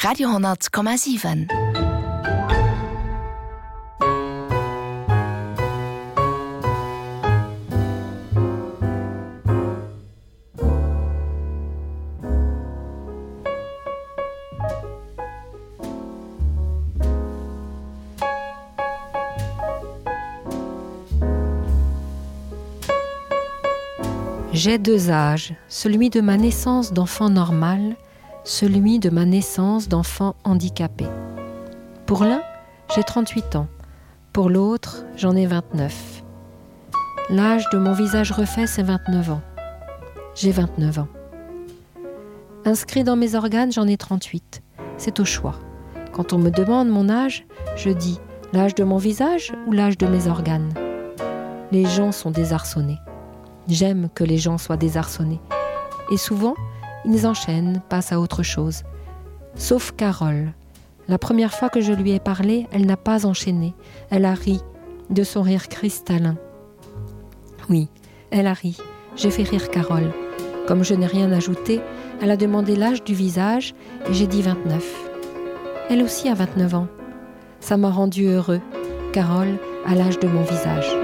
Radio 10,7. J'ai deux âges, celui de ma naissance d'enfant normal, celui de ma naissance d'enfant handicapé. Pour l'un, j'ai 38 ans, pour l'autre, j'en ai 29. L'âge de mon visage refait, c'est 29 ans. J'ai 29 ans. Inscrit dans mes organes, j'en ai 38. C'est au choix. Quand on me demande mon âge, je dis l'âge de mon visage ou l'âge de mes organes. Les gens sont désarçonnés. J'aime que les gens soient désarçonnés. Et souvent, ils enchaînent, passent à autre chose. Sauf Carole. La première fois que je lui ai parlé, elle n'a pas enchaîné. Elle a ri, de son rire cristallin. Oui, elle a ri. J'ai fait rire Carole. Comme je n'ai rien ajouté, elle a demandé l'âge du visage et j'ai dit 29. Elle aussi a 29 ans. Ça m'a rendu heureux. Carole a l'âge de mon visage.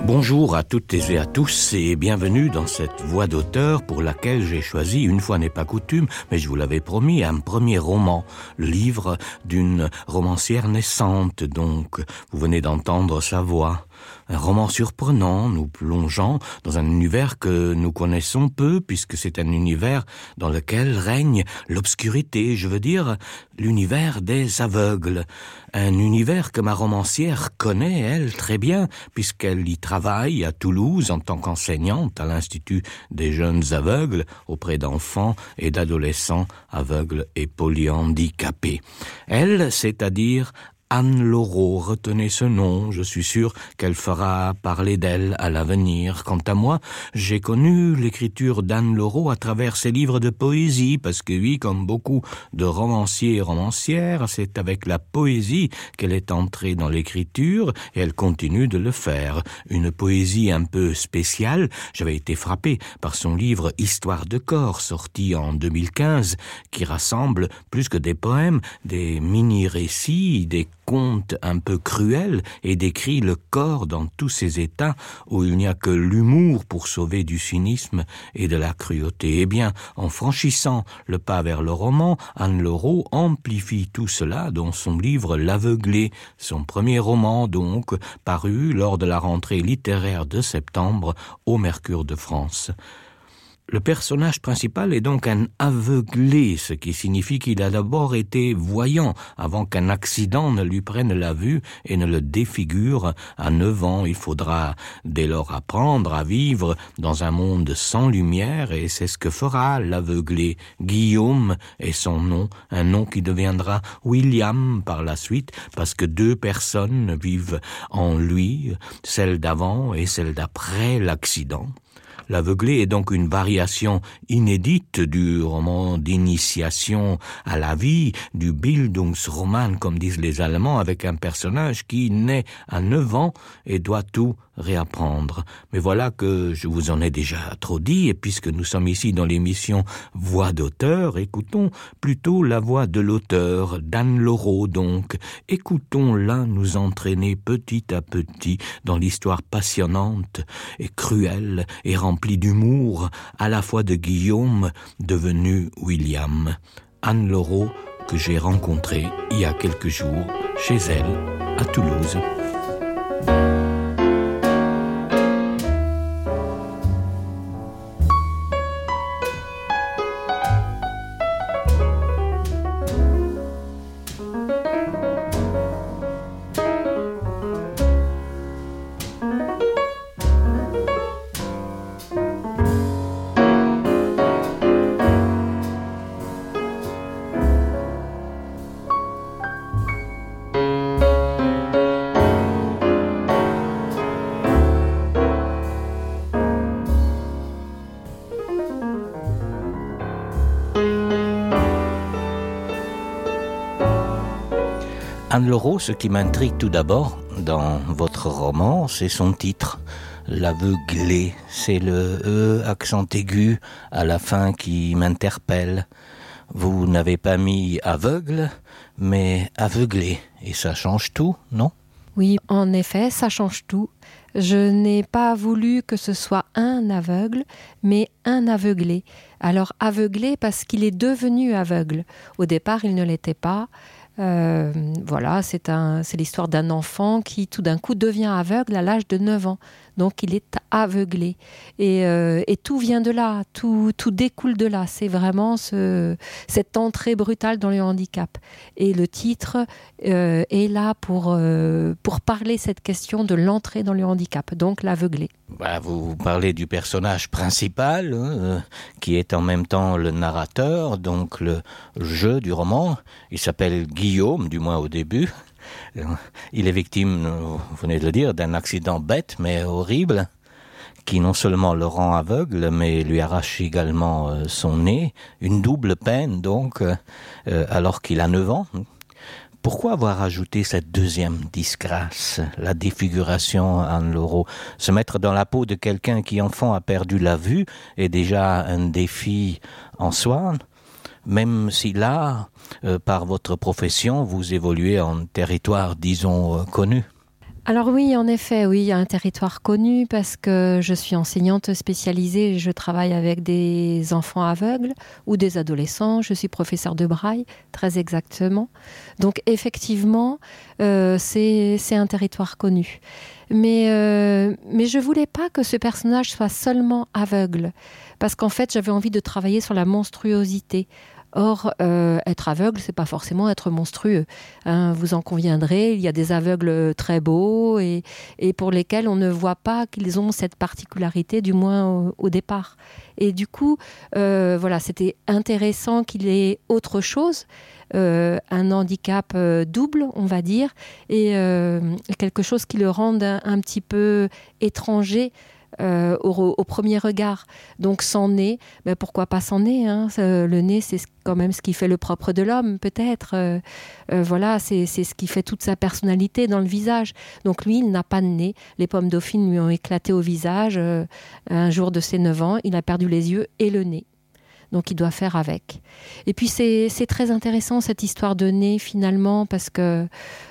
Bonjour à toutes et à tous et bienvenue dans cette voix d'auteur pour laquelle j'ai choisi, une fois n'est pas coutume, mais je vous l'avais promis, un premier roman, le livre d'une romancière naissante donc. Vous venez d'entendre sa voix. Un roman surprenant, nous plongeant dans un univers que nous connaissons peu, puisque c'est un univers dans lequel règne l'obscurité, je veux dire l'univers des aveugles. Un univers que ma romancière connaît, elle, très bien, puisqu'elle y travaille à Toulouse en tant qu'enseignante à l'Institut des jeunes aveugles, auprès d'enfants et d'adolescents aveugles et polyhandicapés. Elle, c'est-à-dire Anne Laureau, retenez ce nom, je suis sûr qu'elle fera parler d'elle à l'avenir. Quant à moi, j'ai connu l'écriture d'Anne Laureau à travers ses livres de poésie, parce que oui, comme beaucoup de romanciers et romancières, c'est avec la poésie qu'elle est entrée dans l'écriture, et elle continue de le faire. Une poésie un peu spéciale, j'avais été frappé par son livre Histoire de corps, sorti en 2015, qui rassemble plus que des poèmes, des mini-récits, des conte un peu cruel et décrit le corps dans tous ses états où il n'y a que l'humour pour sauver du cynisme et de la cruauté. Eh bien, en franchissant le pas vers le roman, Anne Laureau amplifie tout cela dans son livre L'Aveuglé, son premier roman donc, paru lors de la rentrée littéraire de septembre au Mercure de France. Le personnage principal est donc un aveuglé, ce qui signifie qu'il a d'abord été voyant avant qu'un accident ne lui prenne la vue et ne le défigure. À 9 ans, il faudra dès lors apprendre à vivre dans un monde sans lumière et c'est ce que fera l'aveuglé. Guillaume est son nom, un nom qui deviendra William par la suite parce que deux personnes vivent en lui, celle d'avant et celle d'après l'accident. L'aveuglé est donc une variation inédite du roman d'initiation à la vie, du Bildungsroman, comme disent les Allemands, avec un personnage qui naît à 9 ans et doit tout réapprendre. Mais voilà que je vous en ai déjà trop dit, et puisque nous sommes ici dans l'émission Voix d'auteur, écoutons plutôt la voix de l'auteur, d'Anne Laureau donc. Écoutons-la nous entraîner petit à petit dans l'histoire passionnante et cruelle et remplie d'humour, à la fois de Guillaume, devenu William. Anne Laureau, que j'ai rencontrée il y a quelques jours chez elle, à Toulouse. Anne Laureau, ce qui m'intrigue tout d'abord dans votre roman, c'est son titre, L'aveuglé. C'est le E accent aigu à la fin qui m'interpelle. Vous n'avez pas mis aveugle, mais aveuglé. Et ça change tout, non ? Oui, en effet, ça change tout. Je n'ai pas voulu que ce soit un aveugle, mais un aveuglé. Alors aveuglé parce qu'il est devenu aveugle. Au départ, il ne l'était pas. Voilà, c'est l'histoire d'un enfant qui tout d'un coup devient aveugle à l'âge de 9 ans. Donc il est aveuglé. Et tout vient de là, tout découle de là. C'est vraiment cette entrée brutale dans le handicap. Et le titre est là pour parler cette question de l'entrée dans le handicap, donc l'aveuglé. Vous parlez du personnage principal, qui est en même temps le narrateur, donc le jeu du roman. Il s'appelle Guillaume, du moins au début. Il est victime, vous venez de le dire, d'un accident bête mais horrible, qui non seulement le rend aveugle, mais lui arrache également son nez. Une double peine, donc, alors qu'il a 9 ans. Pourquoi avoir ajouté cette deuxième disgrâce, la défiguration, Anne Laureau ? Se mettre dans la peau de quelqu'un qui, enfant, a perdu la vue est déjà un défi en soi, même si là, par votre profession, vous évoluez en territoire, disons, connu. Alors oui, en effet, oui, il y a un territoire connu parce que je suis enseignante spécialisée et je travaille avec des enfants aveugles ou des adolescents. Je suis professeure de braille, très exactement. Donc effectivement, c'est un territoire connu. Mais je voulais pas que ce personnage soit seulement aveugle parce qu'en fait, j'avais envie de travailler sur la monstruosité. Or, être aveugle, c'est pas forcément être monstrueux. Vous en conviendrez, il y a des aveugles très beaux et pour lesquels on ne voit pas qu'ils ont cette particularité, du moins au départ. Et du coup, voilà, c'était intéressant qu'il ait autre chose, un handicap double, on va dire, et quelque chose qui le rende un petit peu étranger au premier regard. Donc sans nez, pourquoi pas sans nez, le nez, c'est quand même ce qui fait le propre de l'homme, peut-être. Voilà, c'est ce qui fait toute sa personnalité dans le visage. Donc lui, il n'a pas de nez. Les pommes dauphines lui ont éclaté au visage. Un jour de ses 9 ans, il a perdu les yeux et le nez. Donc il doit faire avec. Et puis c'est très intéressant cette histoire de nez finalement parce que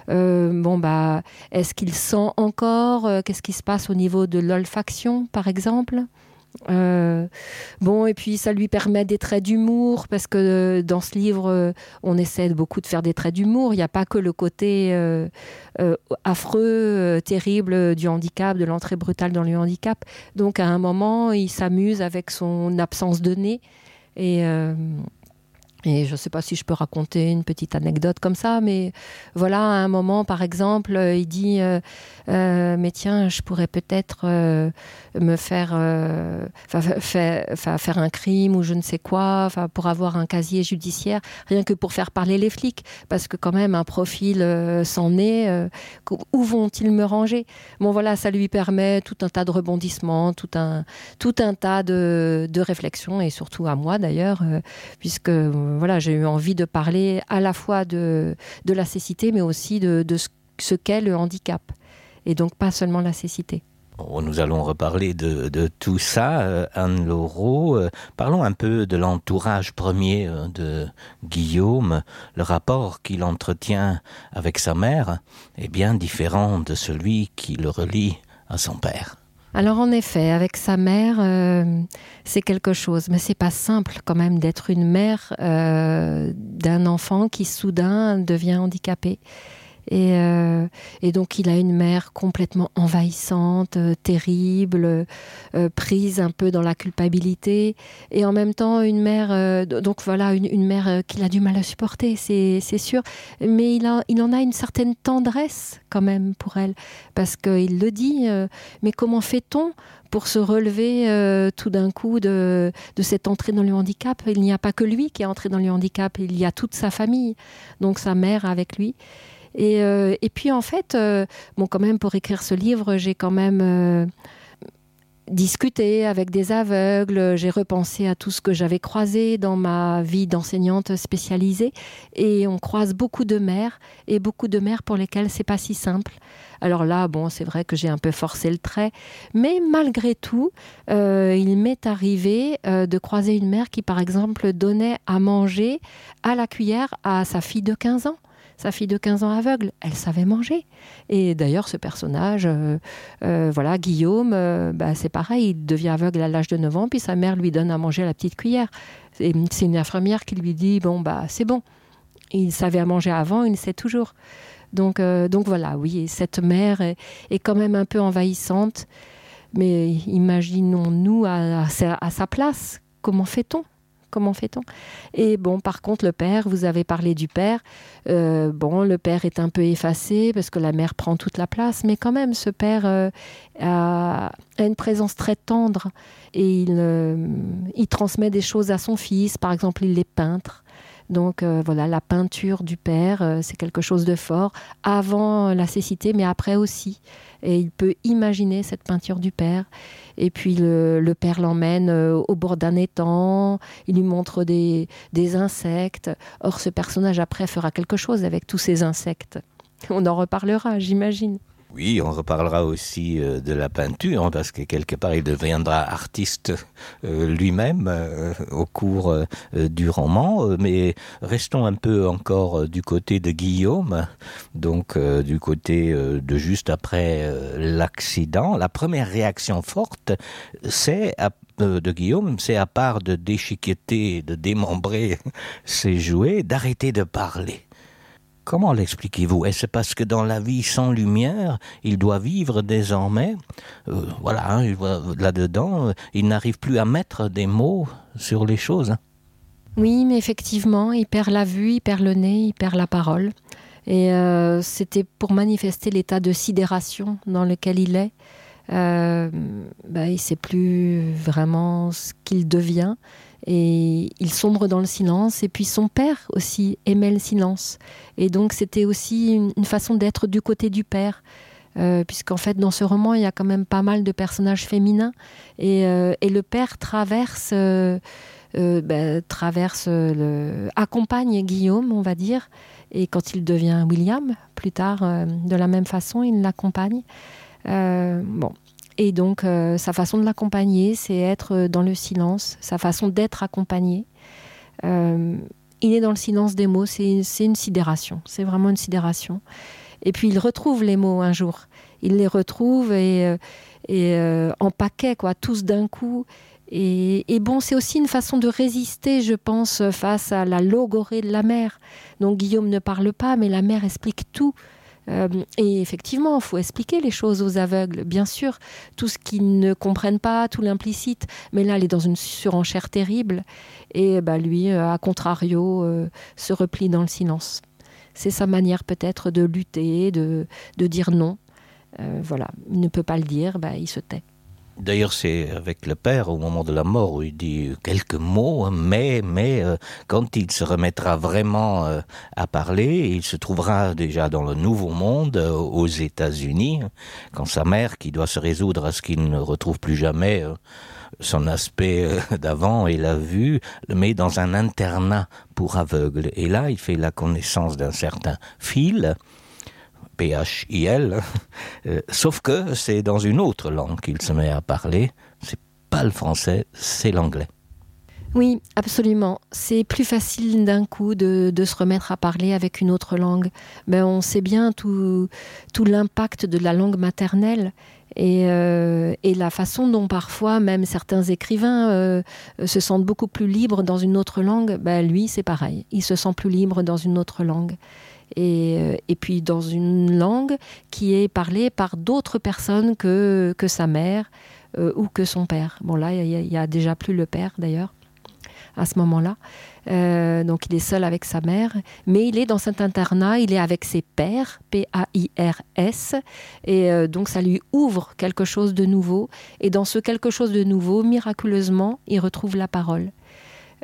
est-ce qu'il sent encore qu'est-ce qui se passe au niveau de l'olfaction par exemple et puis ça lui permet des traits d'humour parce que dans ce livre on essaie beaucoup de faire des traits d'humour. Il n'y a pas que le côté affreux, terrible du handicap, de l'entrée brutale dans le handicap. Donc à un moment il s'amuse avec son absence de nez. Et je ne sais pas si je peux raconter une petite anecdote comme ça, mais voilà, à un moment, par exemple, il dit mais tiens, je pourrais peut-être me faire un crime ou je ne sais quoi, pour avoir un casier judiciaire, rien que pour faire parler les flics, parce que quand même, un profil sans nez, où vont-ils me ranger ? Bon, voilà, ça lui permet tout un tas de rebondissements, tout un tas de réflexions, et surtout à moi d'ailleurs, puisque voilà, j'ai eu envie de parler à la fois de la cécité, mais aussi de ce qu'est le handicap. Et donc pas seulement la cécité. Nous allons reparler de tout ça, Anne Laureau. Parlons un peu de l'entourage premier de Guillaume. Le rapport qu'il entretient avec sa mère est bien différent de celui qui le relie à son père. Alors en effet, avec sa mère, c'est quelque chose, mais c'est pas simple quand même d'être une mère d'un enfant qui soudain devient handicapé. Et donc il a une mère complètement envahissante, terrible, prise un peu dans la culpabilité, et en même temps une mère, donc voilà, une mère qu'il a du mal à supporter, c'est sûr, mais il en a une certaine tendresse quand même pour elle, parce qu'il le dit, mais comment fait-on pour se relever tout d'un coup de cette entrée dans le handicap ? Il n'y a pas que lui qui est entré dans le handicap, il y a toute sa famille, donc sa mère avec lui. Et puis en fait, quand même pour écrire ce livre, j'ai quand même discuter avec des aveugles, j'ai repensé à tout ce que j'avais croisé dans ma vie d'enseignante spécialisée, et on croise beaucoup de mères, et beaucoup de mères pour lesquelles c'est pas si simple. Alors là, bon, c'est vrai que j'ai un peu forcé le trait, mais malgré tout, il m'est arrivé de croiser une mère qui, par exemple, donnait à manger à la cuillère à sa fille de 15 ans. Sa fille de 15 ans aveugle, elle savait manger. Et d'ailleurs, ce personnage, Guillaume, c'est pareil, il devient aveugle à l'âge de 9 ans, puis sa mère lui donne à manger à la petite cuillère. Et c'est une infirmière qui lui dit, c'est bon. Il savait à manger avant, il sait toujours. Donc voilà, oui, cette mère est quand même un peu envahissante, mais imaginons-nous à sa place, comment fait-on ? Et par contre, le père, vous avez parlé du père. Le père est un peu effacé parce que la mère prend toute la place, mais quand même, ce père a une présence très tendre et il transmet des choses à son fils. Par exemple, il est peintre. Donc la peinture du père, c'est quelque chose de fort, avant la cécité, mais après aussi. Et il peut imaginer cette peinture du père. Et puis le père l'emmène au bord d'un étang, il lui montre des insectes. Or, ce personnage après fera quelque chose avec tous ces insectes. On en reparlera, j'imagine. Oui, on reparlera aussi de la peinture, parce que quelque part, il deviendra artiste lui-même au cours du roman. Mais restons un peu encore du côté de Guillaume, donc du côté de juste après l'accident. La première réaction forte, de Guillaume, c'est à part de déchiqueter, de démembrer ses jouets, d'arrêter de parler. Comment l'expliquez-vous ? Est-ce parce que dans la vie sans lumière, il doit vivre désormais là-dedans, il n'arrive plus à mettre des mots sur les choses. Oui, mais effectivement, il perd la vue, il perd le nez, il perd la parole. Et c'était pour manifester l'état de sidération dans lequel il est. Il ne sait plus vraiment ce qu'il devient. Et il sombre dans le silence. Et puis son père aussi aimait le silence. Et donc c'était aussi une façon d'être du côté du père. Puisqu'en fait dans ce roman il y a quand même pas mal de personnages féminins. Et le père accompagne Guillaume, on va dire. Et quand il devient William, plus tard, de la même façon, il l'accompagne. Et donc, sa façon de l'accompagner, c'est être dans le silence, sa façon d'être accompagné. Il est dans le silence des mots, c'est une sidération, c'est vraiment une sidération. Et puis, il retrouve les mots un jour. Il les retrouve et en paquet, tous d'un coup. Et c'est aussi une façon de résister, je pense, face à la logorée de la mère. Donc, Guillaume ne parle pas, mais la mère explique tout. Et effectivement, il faut expliquer les choses aux aveugles, bien sûr, tout ce qu'ils ne comprennent pas, tout l'implicite, mais là, elle est dans une surenchère terrible, et lui, à contrario, se replie dans le silence. C'est sa manière peut-être de lutter, de dire non. Il ne peut pas le dire, il se tait. D'ailleurs, c'est avec le père, au moment de la mort, où il dit quelques mots, mais quand il se remettra vraiment à parler, il se trouvera déjà dans le Nouveau Monde, aux États-Unis, quand sa mère, qui doit se résoudre à ce qu'il ne retrouve plus jamais son aspect d'avant et la vue, le met dans un internat pour aveugles. Et là, il fait la connaissance d'un certain Phil, P-H-I-L, sauf que c'est dans une autre langue qu'il se met à parler. C'est pas le français, c'est l'anglais. Oui, absolument. C'est plus facile d'un coup de se remettre à parler avec une autre langue. On sait bien tout l'impact de la langue maternelle et la façon dont parfois même certains écrivains se sentent beaucoup plus libres dans une autre langue. Lui, c'est pareil. Il se sent plus libre dans une autre langue. Et puis dans une langue qui est parlée par d'autres personnes que sa mère ou que son père. Là, il y a déjà plus le père d'ailleurs à ce moment-là. Donc il est seul avec sa mère, mais il est dans cet internat, il est avec ses pairs, P-A-I-R-S, et donc ça lui ouvre quelque chose de nouveau. Et dans ce quelque chose de nouveau, miraculeusement, il retrouve la parole.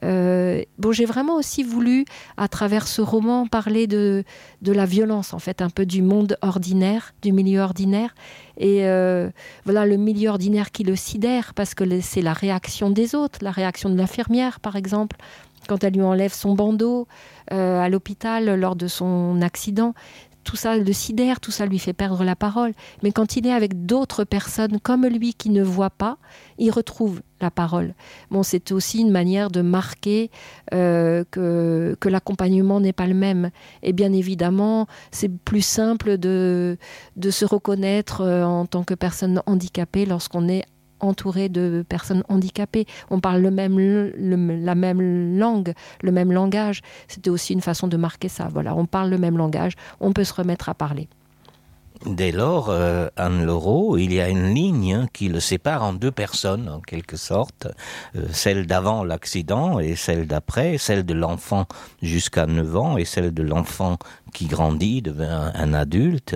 J'ai vraiment aussi voulu, à travers ce roman, parler de la violence, en fait, un peu du monde ordinaire, du milieu ordinaire. Et le milieu ordinaire qui le sidère, parce que c'est la réaction des autres, la réaction de l'infirmière, par exemple, quand elle lui enlève son bandeau à l'hôpital lors de son accident. Tout ça le sidère, tout ça lui fait perdre la parole. Mais quand il est avec d'autres personnes comme lui qui ne voient pas, il retrouve la parole. C'est aussi une manière de marquer que l'accompagnement n'est pas le même. Et bien évidemment, c'est plus simple de se reconnaître en tant que personne handicapée lorsqu'on est entouré de personnes handicapées. On parle la même langue, le même langage. C'était aussi une façon de marquer ça. Voilà, on parle le même langage, on peut se remettre à parler. Dès lors, Anne Laureau, il y a une ligne qui le sépare en deux personnes, en quelque sorte, celle d'avant l'accident et celle d'après, celle de l'enfant jusqu'à 9 ans et celle de l'enfant qui grandit, devient un adulte,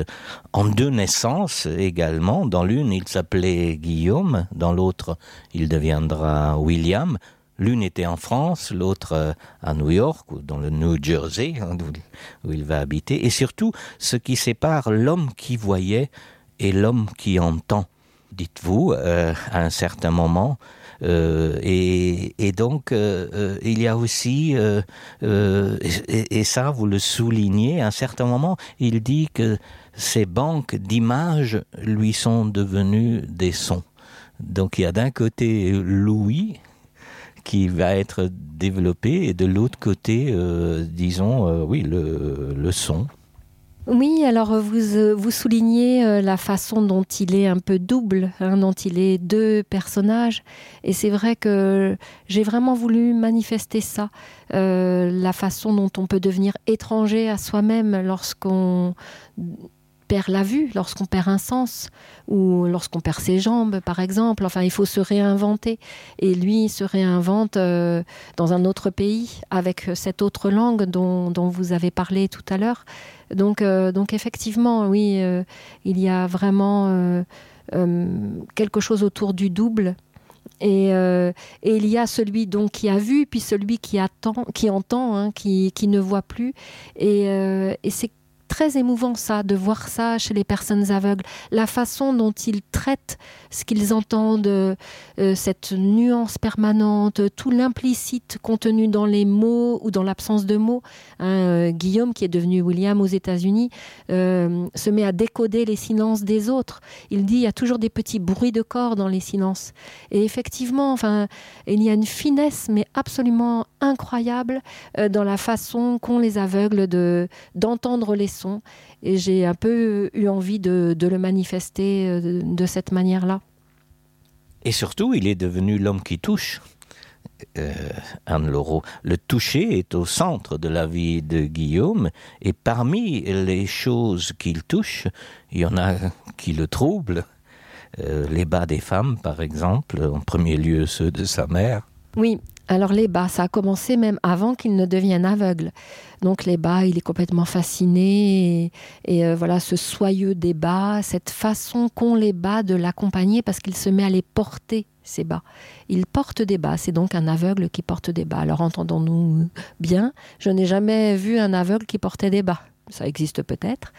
en deux naissances également. Dans l'une, il s'appelait Guillaume, dans l'autre, il deviendra William. L'une était en France, l'autre à New York, ou dans le New Jersey, où il va habiter. Et surtout, ce qui sépare l'homme qui voyait et l'homme qui entend, dites-vous, à un certain moment. Et donc, il y a aussi, et ça, vous le soulignez, à un certain moment, il dit que ces banques d'images lui sont devenues des sons. Donc, il y a d'un côté l'ouïe, qui va être développé, et de l'autre côté, le son. Oui, alors vous soulignez la façon dont il est un peu double, dont il est deux personnages, et c'est vrai que j'ai vraiment voulu manifester ça, la façon dont on peut devenir étranger à soi-même lorsqu'on perd la vue, lorsqu'on perd un sens, ou lorsqu'on perd ses jambes, par exemple. Enfin, il faut se réinventer. Et lui, il se réinvente dans un autre pays, avec cette autre langue dont vous avez parlé tout à l'heure. Donc effectivement, oui, il y a vraiment quelque chose autour du double. Et il y a celui donc qui a vu, puis celui qui entend, qui ne voit plus. Et c'est très émouvant ça, de voir ça chez les personnes aveugles, la façon dont ils traitent ce qu'ils entendent, cette nuance permanente, tout l'implicite contenu dans les mots ou dans l'absence de mots. Guillaume, qui est devenu William aux États-Unis, se met à décoder les silences des autres. Il dit, il y a toujours des petits bruits de corps dans les silences. Et effectivement, il y a une finesse, mais absolument incroyable dans la façon qu'ont les aveugles d'entendre les sons. Et j'ai un peu eu envie de le manifester de cette manière-là. Et surtout, il est devenu l'homme qui touche. Anne Laureau. Le toucher est au centre de la vie de Guillaume, et parmi les choses qu'il touche, il y en a qui le troublent. Les bas des femmes, par exemple, en premier lieu ceux de sa mère. Oui, alors les bas, ça a commencé même avant qu'il ne devienne aveugle. Donc les bas, il est complètement fasciné, et voilà, ce soyeux des bas, cette façon qu'ont les bas de l'accompagner, parce qu'il se met à les porter, ces bas. Il porte des bas, c'est donc un aveugle qui porte des bas. Alors entendons-nous bien, je n'ai jamais vu un aveugle qui portait des bas. Ça existe peut-être,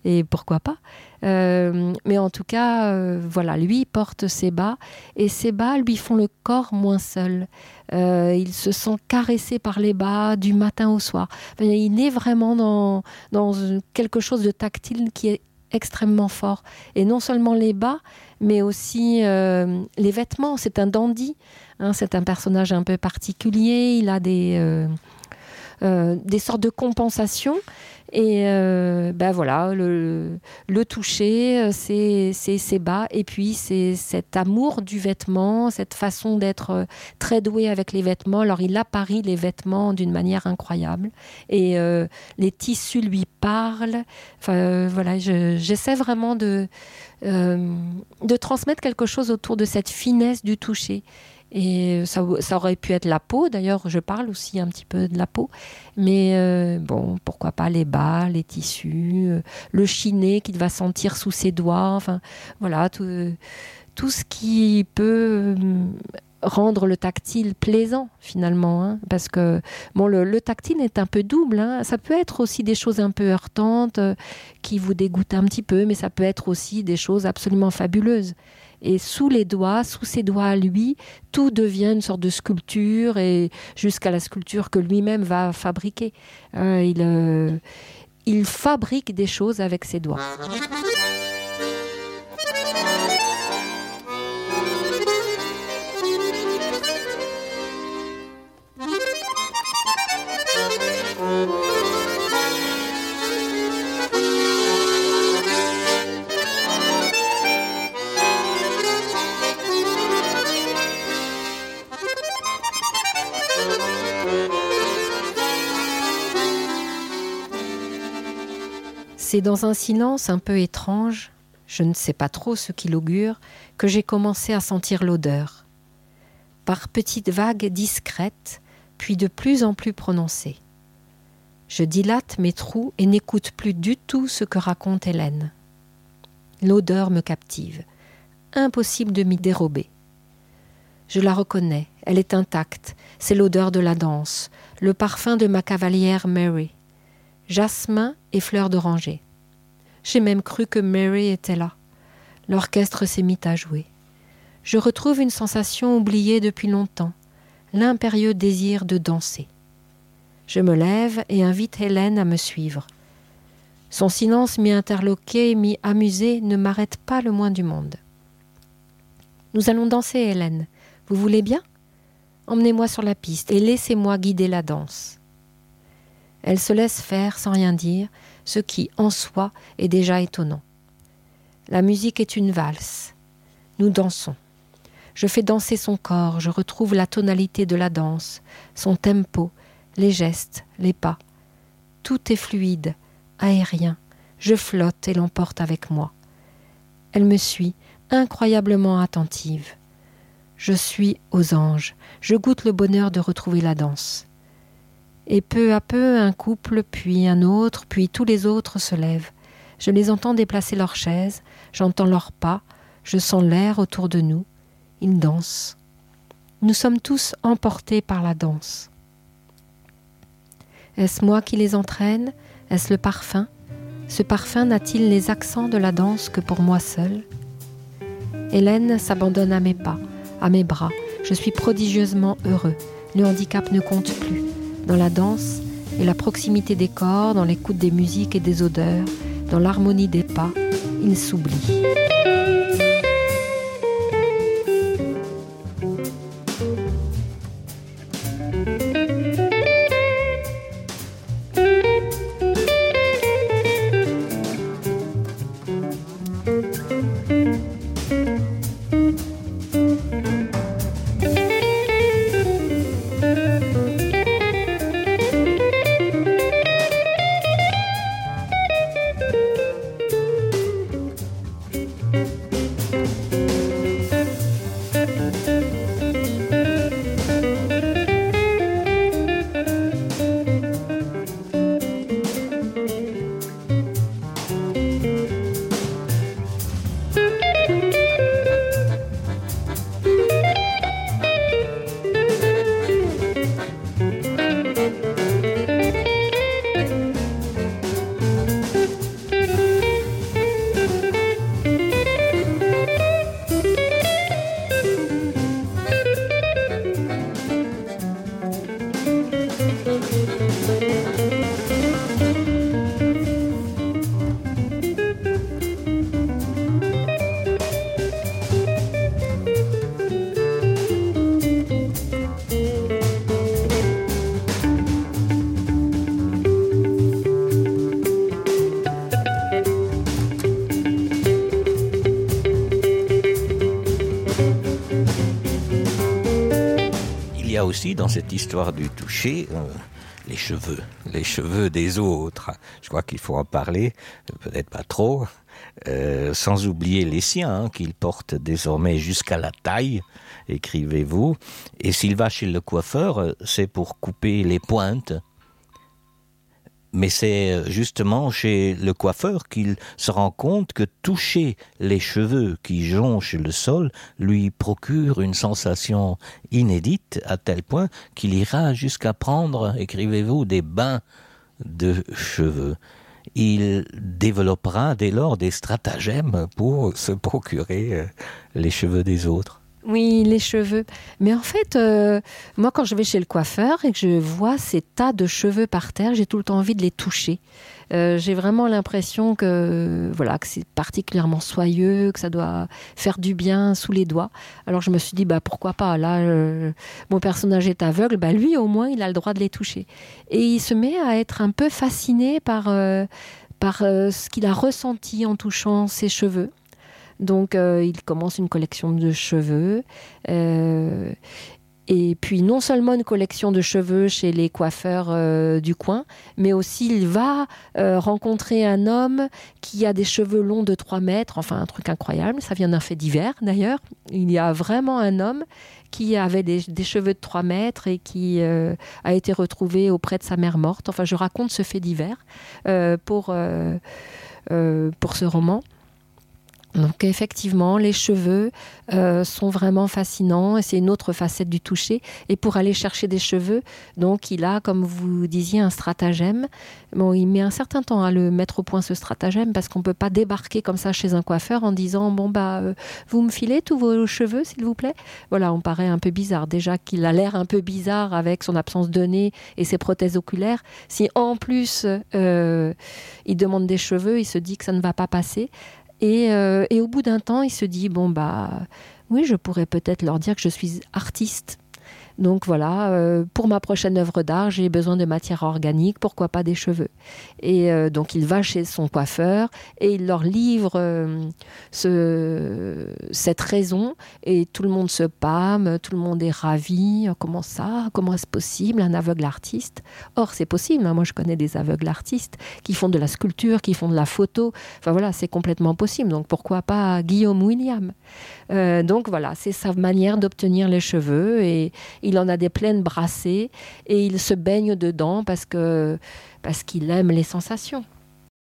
et pourquoi pas. Mais en tout cas, voilà, lui porte ses bas, et ses bas lui font le corps moins seul. Il se sent caressé par les bas du matin au soir. Enfin, il est vraiment dans quelque chose de tactile qui est extrêmement fort. Et non seulement les bas, mais aussi les vêtements. C'est un dandy, c'est un personnage un peu particulier. Il a des sortes de compensations. Et voilà, le toucher, c'est ses bas, et puis c'est cet amour du vêtement, cette façon d'être très doué avec les vêtements. Alors il apparie les vêtements d'une manière incroyable, et les tissus lui parlent. Enfin voilà, j'essaie vraiment de transmettre quelque chose autour de cette finesse du toucher. Et ça aurait pu être la peau, d'ailleurs je parle aussi un petit peu de la peau, mais pourquoi pas les bas, les tissus, le chiné qu'il va sentir sous ses doigts, enfin voilà, tout ce qui peut rendre le tactile plaisant finalement, hein, parce que bon, le tactile est un peu double, hein. Ça peut être aussi des choses un peu heurtantes qui vous dégoûtent un petit peu, mais ça peut être aussi des choses absolument fabuleuses. Et sous ses doigts à lui, tout devient une sorte de sculpture, et jusqu'à la sculpture que lui-même va fabriquer. Il fabrique des choses avec ses doigts. C'est dans un silence un peu étrange, je ne sais pas trop ce qu'il augure, que j'ai commencé à sentir l'odeur. Par petites vagues discrètes, puis de plus en plus prononcées. Je dilate mes trous et n'écoute plus du tout ce que raconte Hélène. L'odeur me captive. Impossible de m'y dérober. Je la reconnais, elle est intacte, c'est l'odeur de la danse, le parfum de ma cavalière Mary. Jasmin et fleurs d'oranger. J'ai même cru que Mary était là. L'orchestre s'est mis à jouer. Je retrouve une sensation oubliée depuis longtemps, l'impérieux désir de danser. Je me lève et invite Hélène à me suivre. Son silence mi-interloqué, mi-amusé ne m'arrête pas le moins du monde. « Nous allons danser, Hélène. Vous voulez bien ? Emmenez-moi sur la piste et laissez-moi guider la danse. » Elle se laisse faire sans rien dire, ce qui, en soi, est déjà étonnant. La musique est une valse. Nous dansons. Je fais danser son corps, je retrouve la tonalité de la danse, son tempo, les gestes, les pas. Tout est fluide, aérien. Je flotte et l'emporte avec moi. Elle me suit, incroyablement attentive. Je suis aux anges. Je goûte le bonheur de retrouver la danse. Et peu à peu, un couple, puis un autre, puis tous les autres se lèvent. Je les entends déplacer leurs chaises, j'entends leurs pas, je sens l'air autour de nous. Ils dansent. Nous sommes tous emportés par la danse. Est-ce moi qui les entraîne ? Est-ce le parfum ? Ce parfum n'a-t-il les accents de la danse que pour moi seule ? Hélène s'abandonne à mes pas, à mes bras. Je suis prodigieusement heureux. Le handicap ne compte plus. Dans la danse et la proximité des corps, dans l'écoute des musiques et des odeurs, dans l'harmonie des pas, il s'oublie. Aussi dans cette histoire du toucher, les cheveux des autres. Je crois qu'il faut en parler, peut-être pas trop, sans oublier les siens, qu'ils portent désormais jusqu'à la taille, écrivez-vous. Et s'il va chez le coiffeur, c'est pour couper les pointes. Mais c'est justement chez le coiffeur qu'il se rend compte que toucher les cheveux qui jonchent le sol lui procure une sensation inédite à tel point qu'il ira jusqu'à prendre, écrivez-vous, des bains de cheveux. Il développera dès lors des stratagèmes pour se procurer les cheveux des autres. Oui, les cheveux. Mais en fait, moi, quand je vais chez le coiffeur et que je vois ces tas de cheveux par terre, j'ai tout le temps envie de les toucher. J'ai vraiment l'impression que c'est particulièrement soyeux, que ça doit faire du bien sous les doigts. Alors je me suis dit, pourquoi pas. Là, mon personnage est aveugle, lui au moins, il a le droit de les toucher. Et il se met à être un peu fasciné par ce qu'il a ressenti en touchant ses cheveux. Donc, il commence une collection de cheveux. Et puis, non seulement une collection de cheveux chez les coiffeurs du coin, mais aussi il va rencontrer un homme qui a des cheveux longs de 3 mètres. Enfin, un truc incroyable. Ça vient d'un fait divers, d'ailleurs. Il y a vraiment un homme qui avait des cheveux de 3 mètres et qui a été retrouvé auprès de sa mère morte. Enfin, je raconte ce fait divers pour ce roman. Donc effectivement, les cheveux sont vraiment fascinants et c'est une autre facette du toucher. Et pour aller chercher des cheveux, donc il a, comme vous disiez, un stratagème. Bon, il met un certain temps à le mettre au point, ce stratagème, parce qu'on ne peut pas débarquer comme ça chez un coiffeur en disant vous me filez tous vos cheveux, s'il vous plaît. Voilà, on paraît un peu bizarre. Déjà qu'il a l'air un peu bizarre avec son absence de nez et ses prothèses oculaires. Si en plus il demande des cheveux, il se dit que ça ne va pas passer. Et au bout d'un temps, il se dit, oui, je pourrais peut-être leur dire que je suis artiste. Donc voilà, pour ma prochaine œuvre d'art, j'ai besoin de matière organique, pourquoi pas des cheveux. Et donc il va chez son coiffeur et il leur livre cette raison et tout le monde se pâme, tout le monde est ravi. Comment ça ? Comment est-ce possible, un aveugle artiste ? Or, c'est possible, hein. Moi je connais des aveugles artistes qui font de la sculpture, qui font de la photo. Enfin voilà, c'est complètement possible. Donc pourquoi pas Guillaume William ? Donc voilà, c'est sa manière d'obtenir les cheveux et il en a des pleines brassées et il se baigne dedans parce qu'il aime les sensations.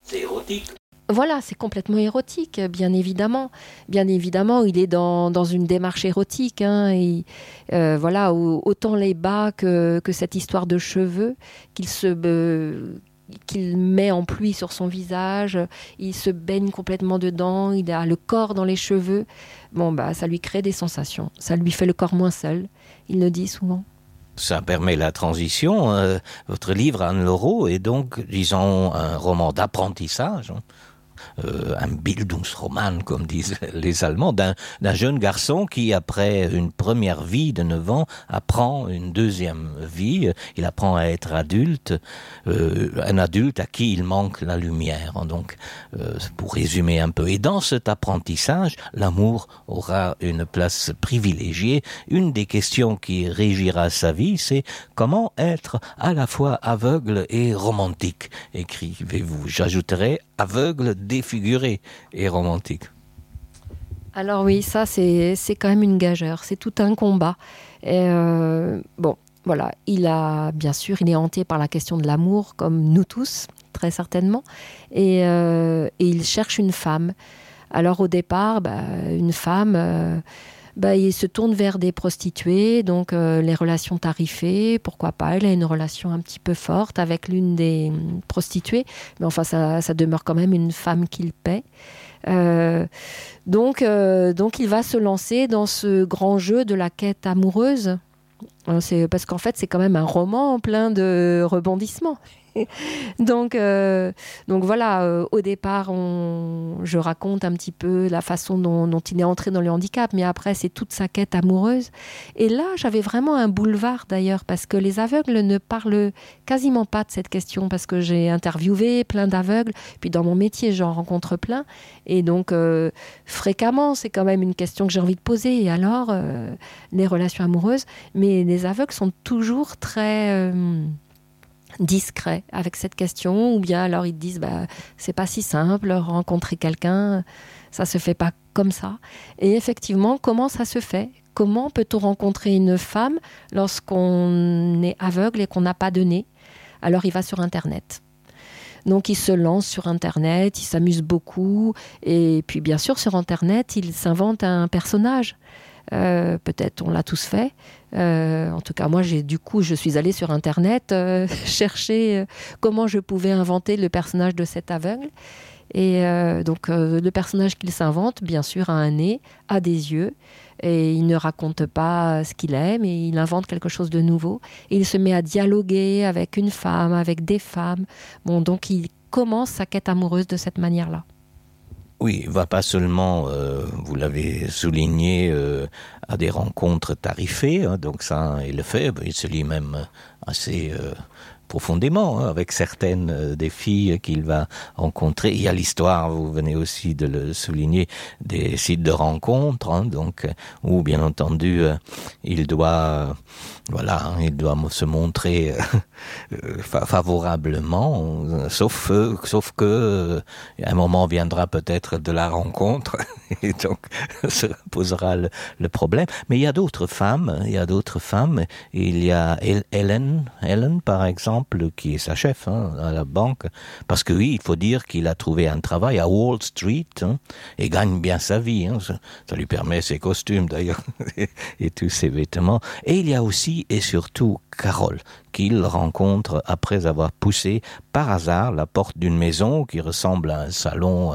C'est érotique. Voilà, c'est complètement érotique, bien évidemment. Bien évidemment, il est dans une démarche érotique. Hein, et, autant les bas que cette histoire de cheveux qu'il met en pluie sur son visage, il se baigne complètement dedans, il a le corps dans les cheveux. Ça lui crée des sensations. Ça lui fait le corps moins seul, il le dit souvent. Ça permet la transition. Votre livre, Anne Laureau, est donc, disons, un roman d'apprentissage. Un Bildungsroman, comme disent les Allemands, d'un jeune garçon qui, après une première vie de 9 ans, apprend une deuxième vie. Il apprend à être adulte, un adulte à qui il manque la lumière. Donc, pour résumer un peu, et dans cet apprentissage, l'amour aura une place privilégiée. Une des questions qui régira sa vie, c'est comment être à la fois aveugle et romantique, écrivez-vous. J'ajouterai aveugle, défiguré et romantique. Alors oui, ça c'est quand même une gageure, c'est tout un combat. Et il est hanté par la question de l'amour, comme nous tous, très certainement, et il cherche une femme. Alors au départ, une femme... il se tourne vers des prostituées, donc les relations tarifées, pourquoi pas, il a une relation un petit peu forte avec l'une des prostituées, mais enfin ça demeure quand même une femme qu'il paie. Donc il va se lancer dans ce grand jeu de la quête amoureuse. C'est parce qu'en fait c'est quand même un roman plein de rebondissements. Donc voilà, au départ, je raconte un petit peu la façon dont il est entré dans le handicap, mais après, c'est toute sa quête amoureuse. Et là, j'avais vraiment un boulevard d'ailleurs, parce que les aveugles ne parlent quasiment pas de cette question, parce que j'ai interviewé plein d'aveugles, puis dans mon métier, j'en rencontre plein. Et donc, fréquemment, c'est quand même une question que j'ai envie de poser. Et alors, les relations amoureuses, mais les aveugles sont toujours très... discret avec cette question, ou bien alors ils te disent c'est pas si simple, rencontrer quelqu'un, ça se fait pas comme ça. Et effectivement, comment ça se fait ? Comment peut-on rencontrer une femme lorsqu'on est aveugle et qu'on n'a pas de nez ? Alors il va sur Internet. Donc il se lance sur Internet, il s'amuse beaucoup, et puis bien sûr sur Internet, il s'invente un personnage. Peut-être on l'a tous fait. En tout cas, moi, je suis allée sur Internet chercher comment je pouvais inventer le personnage de cet aveugle. Et donc, le personnage qu'il s'invente, bien sûr, a un nez, a des yeux, et il ne raconte pas ce qu'il est, mais il invente quelque chose de nouveau. Et il se met à dialoguer avec une femme, avec des femmes. Bon, donc, il commence sa quête amoureuse de cette manière-là. Oui, il ne va pas seulement, vous l'avez souligné, à des rencontres tarifées, hein, donc ça, il le fait, il se lie même assez profondément, hein, avec certaines des filles qu'il va rencontrer. Il y a l'histoire, vous venez aussi de le souligner, des sites de rencontres, hein, donc, où bien entendu, il doit se montrer favorablement, sauf que un moment viendra peut-être de la rencontre, et donc se posera le problème. Mais il y a d'autres femmes, il y a Helen par exemple, qui est sa chef, hein, à la banque, parce que oui, il faut dire qu'il a trouvé un travail à Wall Street, hein, et gagne bien sa vie, hein, ça lui permet ses costumes d'ailleurs, et tous ses vêtements. Et il y a aussi et surtout Carole, qu'il rencontre après avoir poussé par hasard la porte d'une maison qui ressemble à un salon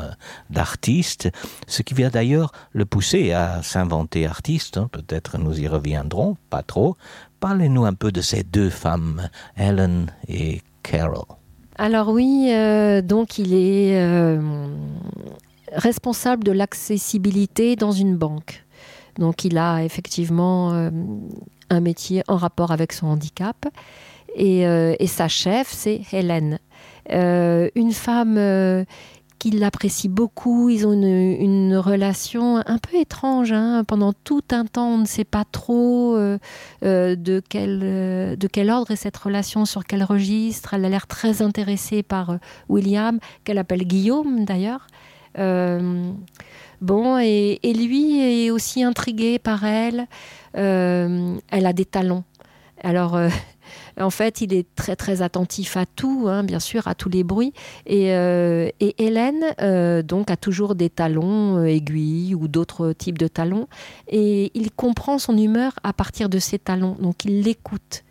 d'artistes, ce qui vient d'ailleurs le pousser à s'inventer artiste, hein, peut-être nous y reviendrons, pas trop. Parlez-nous un peu de ces deux femmes, Helen et Carol. Alors oui, donc il est responsable de l'accessibilité dans une banque. Donc il a effectivement un métier en rapport avec son handicap. Et sa chef, c'est Hélène. Une femme qui l'apprécie beaucoup. Ils ont une relation un peu étrange. Hein. Pendant tout un temps, on ne sait pas trop de quel ordre est cette relation, sur quel registre. Elle a l'air très intéressée par William, qu'elle appelle Guillaume d'ailleurs. Et lui est aussi intrigué par elle. Elle a des talons. Alors, en fait, il est très très attentif à tout, hein, bien sûr, à tous les bruits. Et Hélène, donc, a toujours des talons aiguilles ou d'autres types de talons. Et il comprend son humeur à partir de ses talons. Donc, il l'écoute.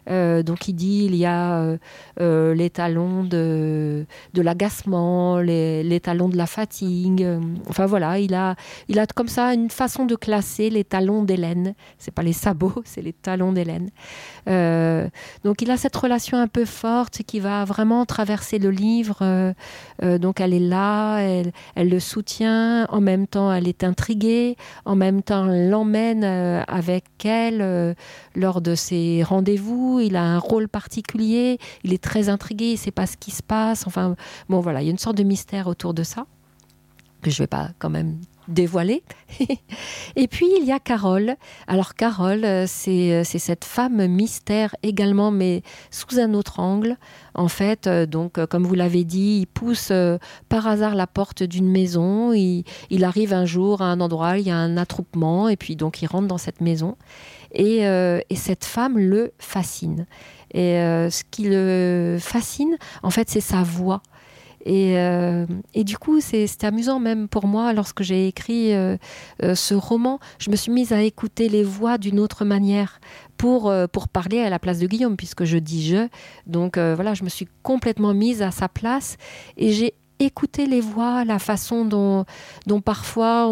Donc il dit il y a les talons de l'agacement, les talons de la fatigue. Enfin voilà, il a comme ça une façon de classer les talons d'Hélène. C'est pas les sabots, c'est les talons d'Hélène. Donc il a cette relation un peu forte qui va vraiment traverser le livre. Donc elle est là, elle le soutient. En même temps, elle est intriguée. En même temps, elle l'emmène avec elle lors de ses rendez-vous. Il a un rôle particulier, il est très intrigué, il ne sait pas ce qui se passe. Enfin, bon voilà, il y a une sorte de mystère autour de ça, que je ne vais pas quand même dévoiler. Et puis, il y a Carole. Alors, Carole, c'est cette femme mystère également, mais sous un autre angle. En fait, donc, comme vous l'avez dit, il pousse par hasard la porte d'une maison. Il arrive un jour à un endroit, il y a un attroupement, et puis donc, il rentre dans cette maison. Et cette femme le fascine. Et ce qui le fascine, en fait, c'est sa voix. Et du coup, c'est amusant même pour moi, lorsque j'ai écrit ce roman, je me suis mise à écouter les voix d'une autre manière pour parler à la place de Guillaume, puisque je dis « je ». Donc voilà, je me suis complètement mise à sa place et j'ai écouté les voix, la façon dont parfois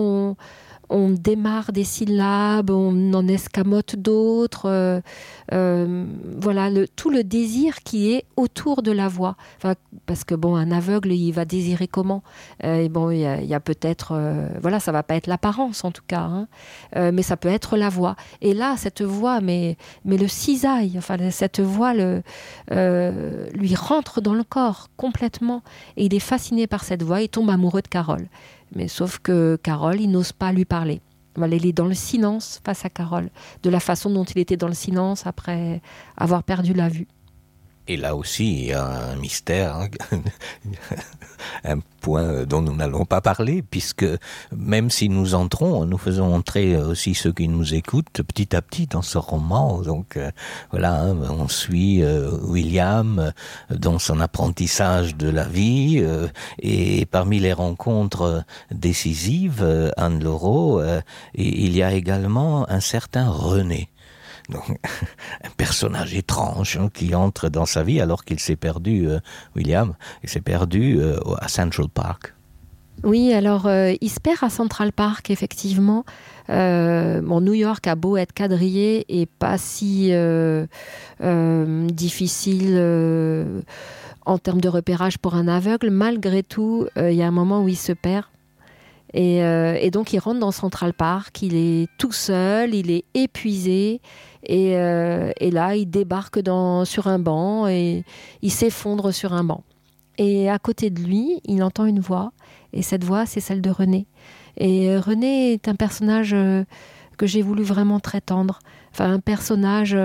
on démarre des syllabes, on en escamote d'autres. Voilà, tout le désir qui est autour de la voix. Enfin, parce que bon, un aveugle, il va désirer comment ? Et bon, il y a peut-être, voilà, ça va pas être l'apparence en tout cas, hein, mais ça peut être la voix. Et là, cette voix, mais le cisaille, enfin cette voix lui rentre dans le corps complètement. Et il est fasciné par cette voix. Il tombe amoureux de Carole. Mais sauf que Carole, il n'ose pas lui parler. Voilà, il est dans le silence face à Carole, de la façon dont il était dans le silence après avoir perdu la vue. Et là aussi, il y a un mystère, hein, un point dont nous n'allons pas parler, puisque même si nous entrons, nous faisons entrer aussi ceux qui nous écoutent petit à petit dans ce roman. Donc voilà, hein, on suit William dans son apprentissage de la vie, et parmi les rencontres décisives, Anne Laureau, il y a également un certain René. Donc, un personnage étrange, hein, qui entre dans sa vie alors qu'il s'est perdu, William, il s'est perdu à Central Park. Oui, alors il se perd à Central Park, effectivement. New York a beau être quadrillé et pas si difficile en termes de repérage pour un aveugle, malgré tout, il y a un moment où il se perd. Et donc il rentre dans Central Park, il est tout seul, il est épuisé, et là il débarque sur un banc et il s'effondre sur un banc. Et à côté de lui, il entend une voix, et cette voix, c'est celle de René. Et René est un personnage que j'ai voulu vraiment très tendre, enfin un personnage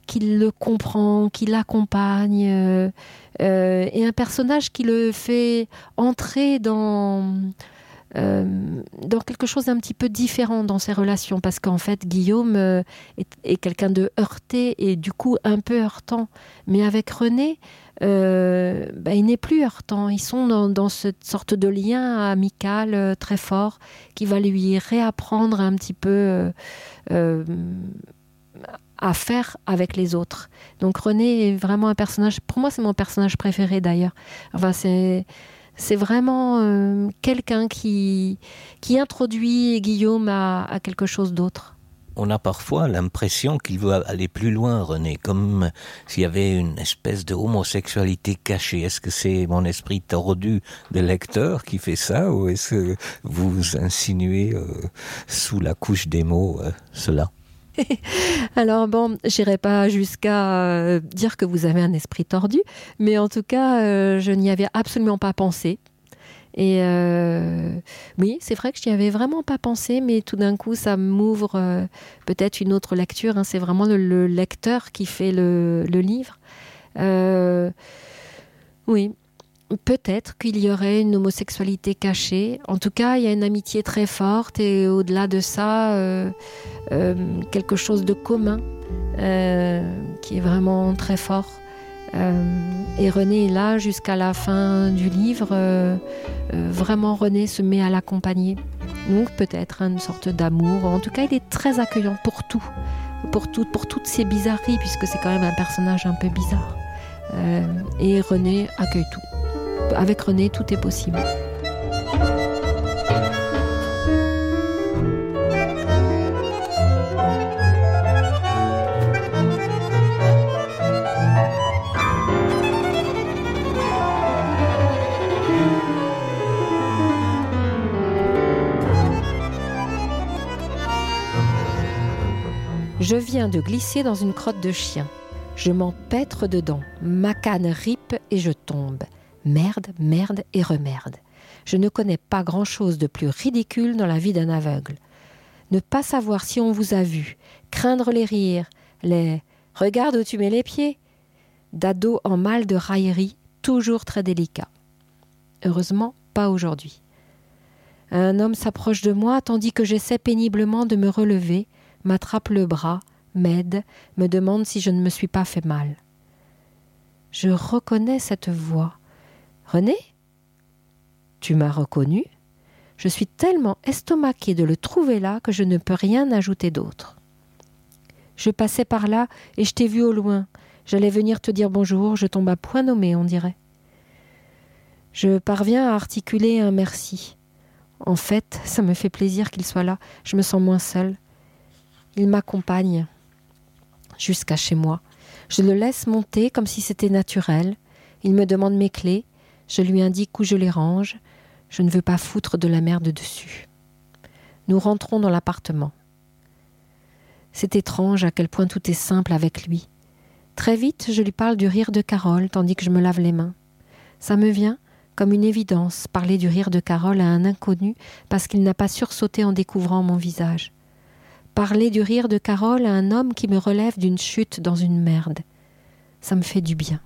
qui le comprend, qui l'accompagne, et un personnage qui le fait entrer dans quelque chose d'un petit peu différent dans ses relations, parce qu'en fait Guillaume est quelqu'un de heurté et du coup un peu heurtant, mais avec René il n'est plus heurtant. Ils sont dans cette sorte de lien amical très fort qui va lui réapprendre un petit peu à faire avec les autres. Donc René est vraiment un personnage, pour moi c'est mon personnage préféré d'ailleurs. Enfin c'est vraiment quelqu'un qui introduit Guillaume à quelque chose d'autre. On a parfois l'impression qu'il veut aller plus loin, René, comme s'il y avait une espèce de homosexualité cachée. Est-ce que c'est mon esprit tordu de lecteur qui fait ça, ou est-ce que vous insinuez sous la couche des mots cela ? Alors bon, j'irai pas jusqu'à dire que vous avez un esprit tordu, mais en tout cas, je n'y avais absolument pas pensé. Et oui, c'est vrai que je n'y avais vraiment pas pensé, mais tout d'un coup, ça m'ouvre peut-être une autre lecture. Hein. C'est vraiment le lecteur qui fait le livre. Oui, peut-être qu'il y aurait une homosexualité cachée. En tout cas, il y a une amitié très forte et au-delà de ça, quelque chose de commun qui est vraiment très fort. Et René est là jusqu'à la fin du livre. Vraiment, René se met à l'accompagner. Donc peut-être une sorte d'amour. En tout cas, il est très accueillant pour tout, pour toutes ces bizarreries, puisque c'est quand même un personnage un peu bizarre. Et René accueille tout. Avec René, tout est possible. Je viens de glisser dans une crotte de chien. Je m'empêtre dedans. Ma canne ripe et je tombe. Merde, merde et remerde. Je ne connais pas grand-chose de plus ridicule dans la vie d'un aveugle. Ne pas savoir si on vous a vu, craindre les rires, les « regarde où tu mets les pieds » d'ado en mal de raillerie, toujours très délicat. Heureusement, pas aujourd'hui. Un homme s'approche de moi tandis que j'essaie péniblement de me relever, m'attrape le bras, m'aide, me demande si je ne me suis pas fait mal. Je reconnais cette voix. « René ? Tu m'as reconnu ? Je suis tellement estomaquée de le trouver là que je ne peux rien ajouter d'autre. Je passais par là et je t'ai vu au loin. J'allais venir te dire bonjour, je tombe à point nommé, on dirait. Je parviens à articuler un merci. En fait, ça me fait plaisir qu'il soit là, je me sens moins seule. Il m'accompagne jusqu'à chez moi. Je le laisse monter comme si c'était naturel. Il me demande mes clés. Je lui indique où je les range. Je ne veux pas foutre de la merde dessus. Nous rentrons dans l'appartement. C'est étrange à quel point tout est simple avec lui. Très vite, je lui parle du rire de Carole tandis que je me lave les mains. Ça me vient comme une évidence, parler du rire de Carole à un inconnu parce qu'il n'a pas sursauté en découvrant mon visage. Parler du rire de Carole à un homme qui me relève d'une chute dans une merde. Ça me fait du bien.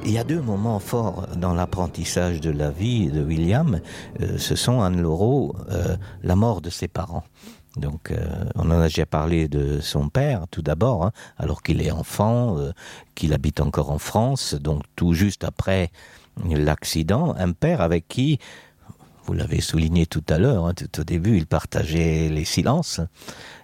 Il y a deux moments forts dans l'apprentissage de la vie de William. Ce sont Anne Laureau, la mort de ses parents. Donc, on en a déjà parlé de son père, tout d'abord, hein, alors qu'il est enfant, qu'il habite encore en France, donc tout juste après l'accident. Un père avec qui, vous l'avez souligné tout à l'heure, hein, tout au début, il partageait les silences,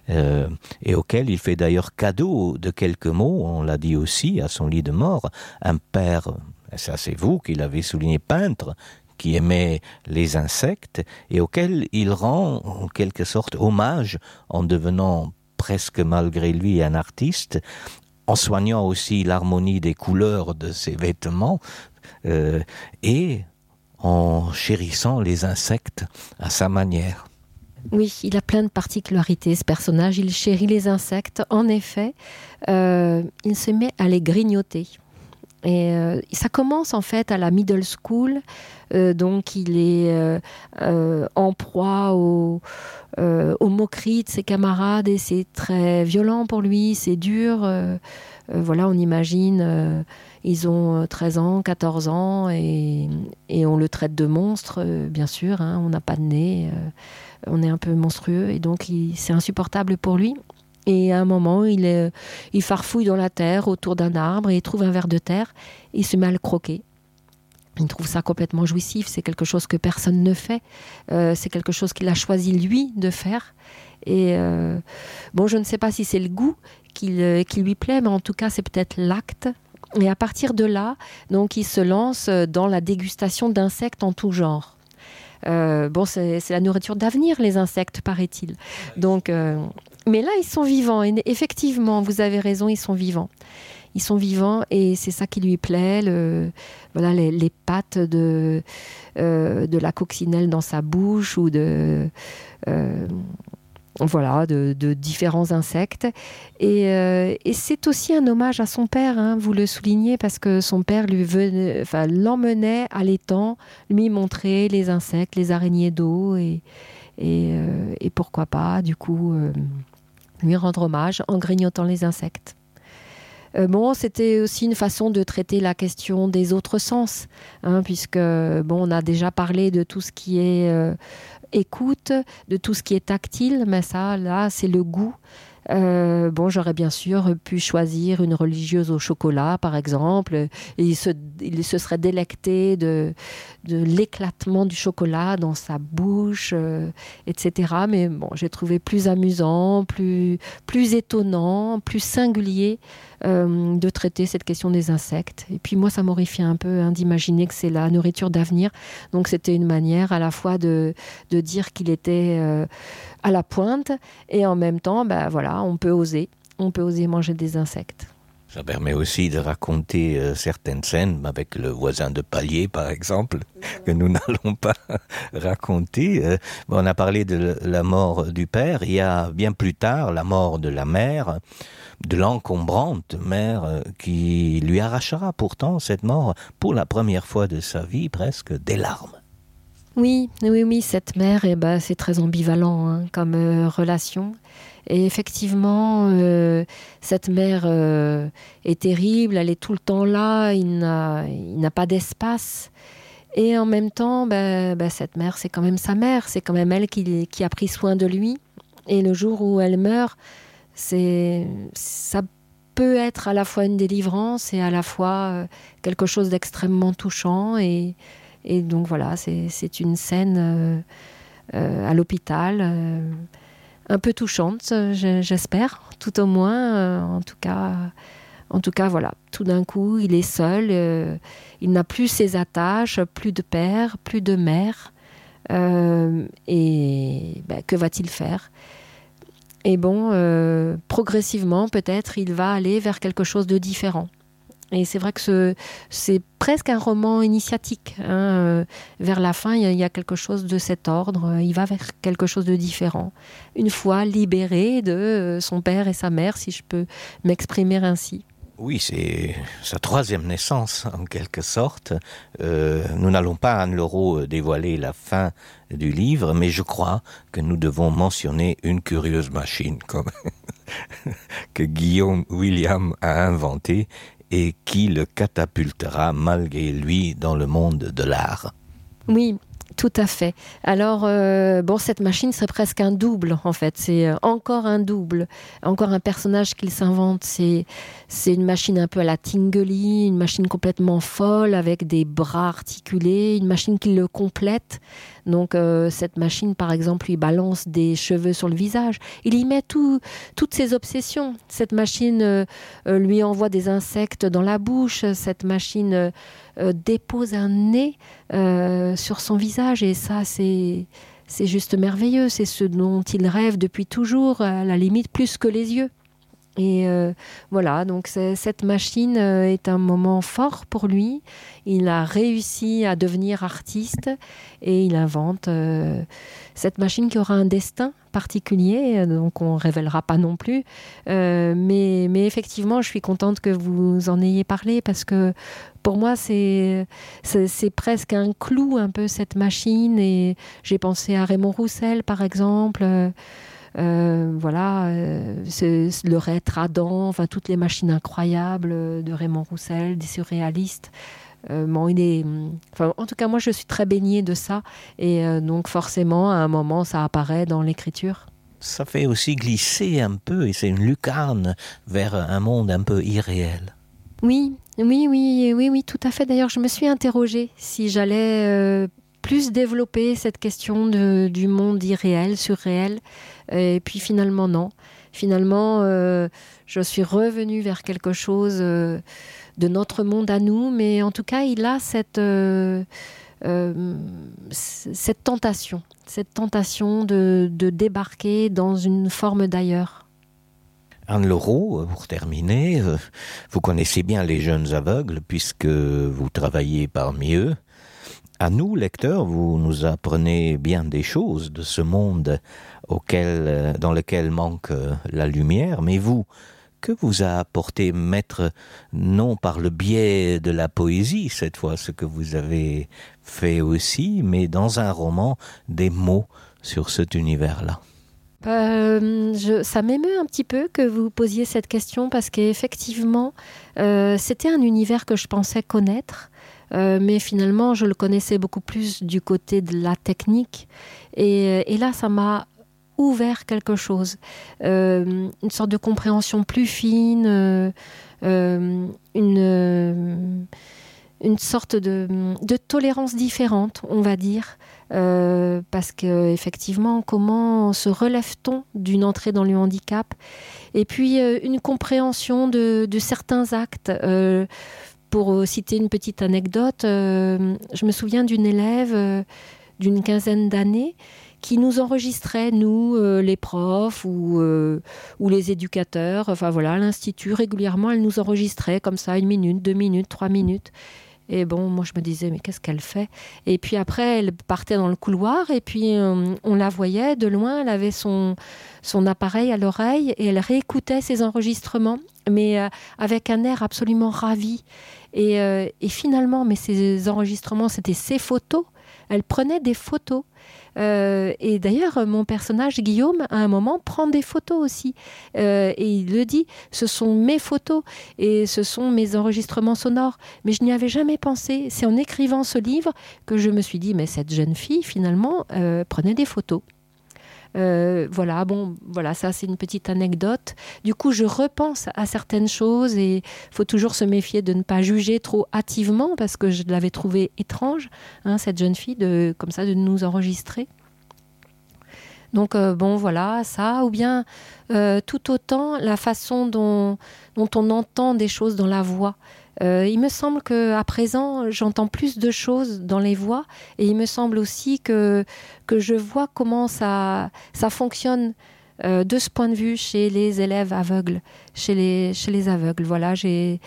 et auquel il fait d'ailleurs cadeau de quelques mots, on l'a dit aussi, à son lit de mort. Un père, ça c'est vous qui l'avez souligné, peintre, qui aimait les insectes et auquel il rend en quelque sorte hommage en devenant presque malgré lui un artiste, en soignant aussi l'harmonie des couleurs de ses vêtements et en chérissant les insectes à sa manière. Oui, il a plein de particularités, ce personnage. Il chérit les insectes. En effet, il se met à les grignoter. Et ça commence en fait à la middle school, donc il est en proie aux moqueries de ses camarades et c'est très violent pour lui, c'est dur. Voilà, on imagine, ils ont 13 ans, 14 ans et on le traite de monstre, bien sûr, hein, on n'a pas de nez, on est un peu monstrueux et donc c'est insupportable pour lui. Et à un moment, il farfouille dans la terre autour d'un arbre et il trouve un ver de terre et il se met à le croquer. Il trouve ça complètement jouissif, c'est quelque chose que personne ne fait, c'est quelque chose qu'il a choisi lui de faire. Et bon, je ne sais pas si c'est le goût qui lui plaît, mais en tout cas, c'est peut-être l'acte. Et à partir de là, donc, il se lance dans la dégustation d'insectes en tout genre. Bon, c'est la nourriture d'avenir, les insectes, paraît-il. Donc, mais là, ils sont vivants. Et effectivement, vous avez raison, ils sont vivants. Ils sont vivants et c'est ça qui lui plaît. Voilà, les pattes de la coccinelle dans sa bouche ou de différents insectes. Et c'est aussi un hommage à son père, hein, vous le soulignez, parce que son père l'emmenait à l'étang, lui montrer les insectes, les araignées d'eau et pourquoi pas, du coup, lui rendre hommage en grignotant les insectes. Bon, c'était aussi une façon de traiter la question des autres sens, hein, puisque on a déjà parlé de tout ce qui est écoute, de tout ce qui est tactile, mais ça, là, c'est le goût. J'aurais bien sûr pu choisir une religieuse au chocolat, par exemple, et il se serait délecté de l'éclatement du chocolat dans sa bouche, etc. Mais bon, j'ai trouvé plus amusant, plus étonnant, plus singulier de traiter cette question des insectes. Et puis moi, ça m'horrifie un peu d'imaginer que c'est la nourriture d'avenir. Donc c'était une manière à la fois de dire qu'il était à la pointe et en même temps, on peut oser manger des insectes. Ça permet aussi de raconter certaines scènes avec le voisin de palier, par exemple, que nous n'allons pas raconter. On a parlé de la mort du père. Il y a bien plus tard la mort de la mère, de l'encombrante mère, qui lui arrachera pourtant cette mort pour la première fois de sa vie, presque des larmes. Oui, cette mère, c'est très ambivalent comme relation. Et effectivement, cette mère est terrible, elle est tout le temps là, il n'a pas d'espace. Et en même temps, cette mère, c'est quand même sa mère, c'est quand même elle qui a pris soin de lui. Et le jour où elle meurt, ça peut être à la fois une délivrance et à la fois quelque chose d'extrêmement touchant. Et donc voilà, c'est une scène à l'hôpital, un peu touchante, j'espère, tout au moins. En tout cas, voilà. Tout d'un coup, il est seul, il n'a plus ses attaches, plus de père, plus de mère. Que va-t-il faire ? Et progressivement, peut-être, il va aller vers quelque chose de différent. Et c'est vrai que c'est presque un roman initiatique. Vers la fin, il y a quelque chose de cet ordre. Il va vers quelque chose de différent. Une fois libéré de son père et sa mère, si je peux m'exprimer ainsi. Oui, c'est sa troisième naissance, en quelque sorte. Nous n'allons pas, Anne Leroux, dévoiler la fin du livre, mais je crois que nous devons mentionner une curieuse machine que Guillaume William a inventée et qui le catapultera malgré lui dans le monde de l'art. Oui, tout à fait. Alors, cette machine serait presque un double, en fait. C'est encore un double, encore un personnage qu'il s'invente. C'est une machine un peu à la Tinguely, une machine complètement folle, avec des bras articulés, une machine qui le complète. Donc, cette machine, par exemple, lui balance des cheveux sur le visage. Il y met toutes ses obsessions. Cette machine lui envoie des insectes dans la bouche. Cette machine dépose un nez sur son visage. Et ça, c'est juste merveilleux. C'est ce dont il rêve depuis toujours, à la limite plus que les yeux. Et voilà, donc cette machine est un moment fort pour lui. Il a réussi à devenir artiste et il invente cette machine qui aura un destin particulier, donc on ne révélera pas non plus. Mais effectivement, je suis contente que vous en ayez parlé parce que pour moi, c'est presque un clou, un peu, cette machine. Et j'ai pensé à Raymond Roussel, par exemple. Le Reître Adam, toutes les machines incroyables de Raymond Roussel, des surréalistes. En tout cas, moi, je suis très baignée de ça. Et donc, forcément, à un moment, ça apparaît dans l'écriture. Ça fait aussi glisser un peu, et c'est une lucarne vers un monde un peu irréel. Oui, tout à fait. D'ailleurs, je me suis interrogée si j'allais plus développer cette question du monde irréel, surréel. Et puis finalement, non. Finalement, je suis revenue vers quelque chose de notre monde à nous, mais en tout cas, il a cette tentation de débarquer dans une forme d'ailleurs. Anne Leroux, pour terminer, vous connaissez bien les jeunes aveugles puisque vous travaillez parmi eux. À nous, lecteurs, vous nous apprenez bien des choses de ce monde dans lequel manque la lumière, mais vous, que vous a apporté Maître, non par le biais de la poésie, cette fois, ce que vous avez fait aussi, mais dans un roman, des mots sur cet univers-là? Ça m'émeut un petit peu que vous posiez cette question parce qu'effectivement, c'était un univers que je pensais connaître. Mais finalement, je le connaissais beaucoup plus du côté de la technique. Et là, ça m'a ouvert quelque chose, une sorte de compréhension plus fine, une sorte de tolérance différente, on va dire, parce que effectivement, comment se relève-t-on d'une entrée dans le handicap, et puis une compréhension de certains actes. Pour citer une petite anecdote, je me souviens d'une élève d'une quinzaine d'années qui nous enregistrait, nous, les profs ou les éducateurs, enfin voilà, à l'institut, régulièrement, elle nous enregistrait comme ça, 1 minute, 2 minutes, 3 minutes. Et bon, moi je me disais, mais qu'est-ce qu'elle fait? Et puis après, elle partait dans le couloir et puis on la voyait de loin, elle avait son appareil à l'oreille et elle réécoutait ses enregistrements, mais avec un air absolument ravi. Et finalement, mais ces enregistrements, c'était ses photos. Elle prenait des photos. Et d'ailleurs, mon personnage, Guillaume, à un moment, prend des photos aussi. Et il le dit, ce sont mes photos et ce sont mes enregistrements sonores. Mais je n'y avais jamais pensé. C'est en écrivant ce livre que je me suis dit, mais cette jeune fille, finalement, prenait des photos. Voilà, ça c'est une petite anecdote. Du coup, je repense à certaines choses et il faut toujours se méfier de ne pas juger trop hâtivement parce que je l'avais trouvée étrange, cette jeune fille, de nous enregistrer. Donc voilà, ça, ou bien tout autant la façon dont on entend des choses dans la voix. Il me semble qu'à présent, j'entends plus de choses dans les voix et il me semble aussi que je vois comment ça fonctionne de ce point de vue chez les élèves aveugles, chez les aveugles. Voilà, j'ai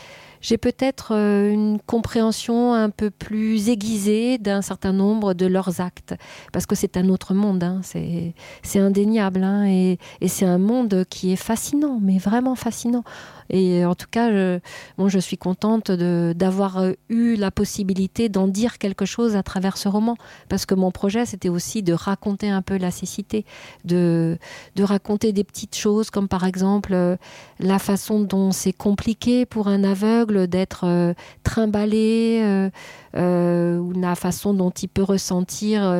peut-être une compréhension un peu plus aiguisée d'un certain nombre de leurs actes, parce que c'est un autre monde, c'est indéniable, et c'est un monde qui est fascinant, mais vraiment fascinant. Et en tout cas, je suis contente d'avoir eu la possibilité d'en dire quelque chose à travers ce roman, parce que mon projet, c'était aussi de raconter un peu la cécité, de raconter des petites choses, comme par exemple la façon dont c'est compliqué pour un aveugle d'être trimballé, ou la façon dont il peut ressentir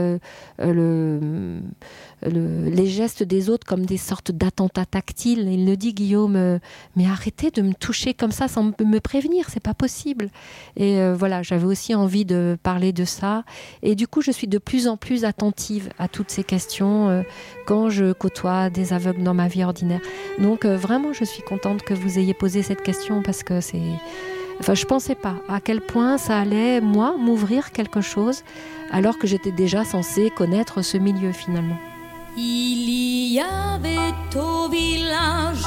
les gestes des autres comme des sortes d'attentats tactiles. Il le dit, Guillaume, mais arrêtez de me toucher comme ça sans me prévenir, c'est pas possible. Et voilà, j'avais aussi envie de parler de ça. Et du coup, je suis de plus en plus attentive à toutes ces questions quand je côtoie des aveugles dans ma vie ordinaire. Donc vraiment, je suis contente que vous ayez posé cette question parce que c'est... Enfin, je pensais pas à quel point ça allait, moi, m'ouvrir quelque chose alors que j'étais déjà censée connaître ce milieu finalement. Il y avait au village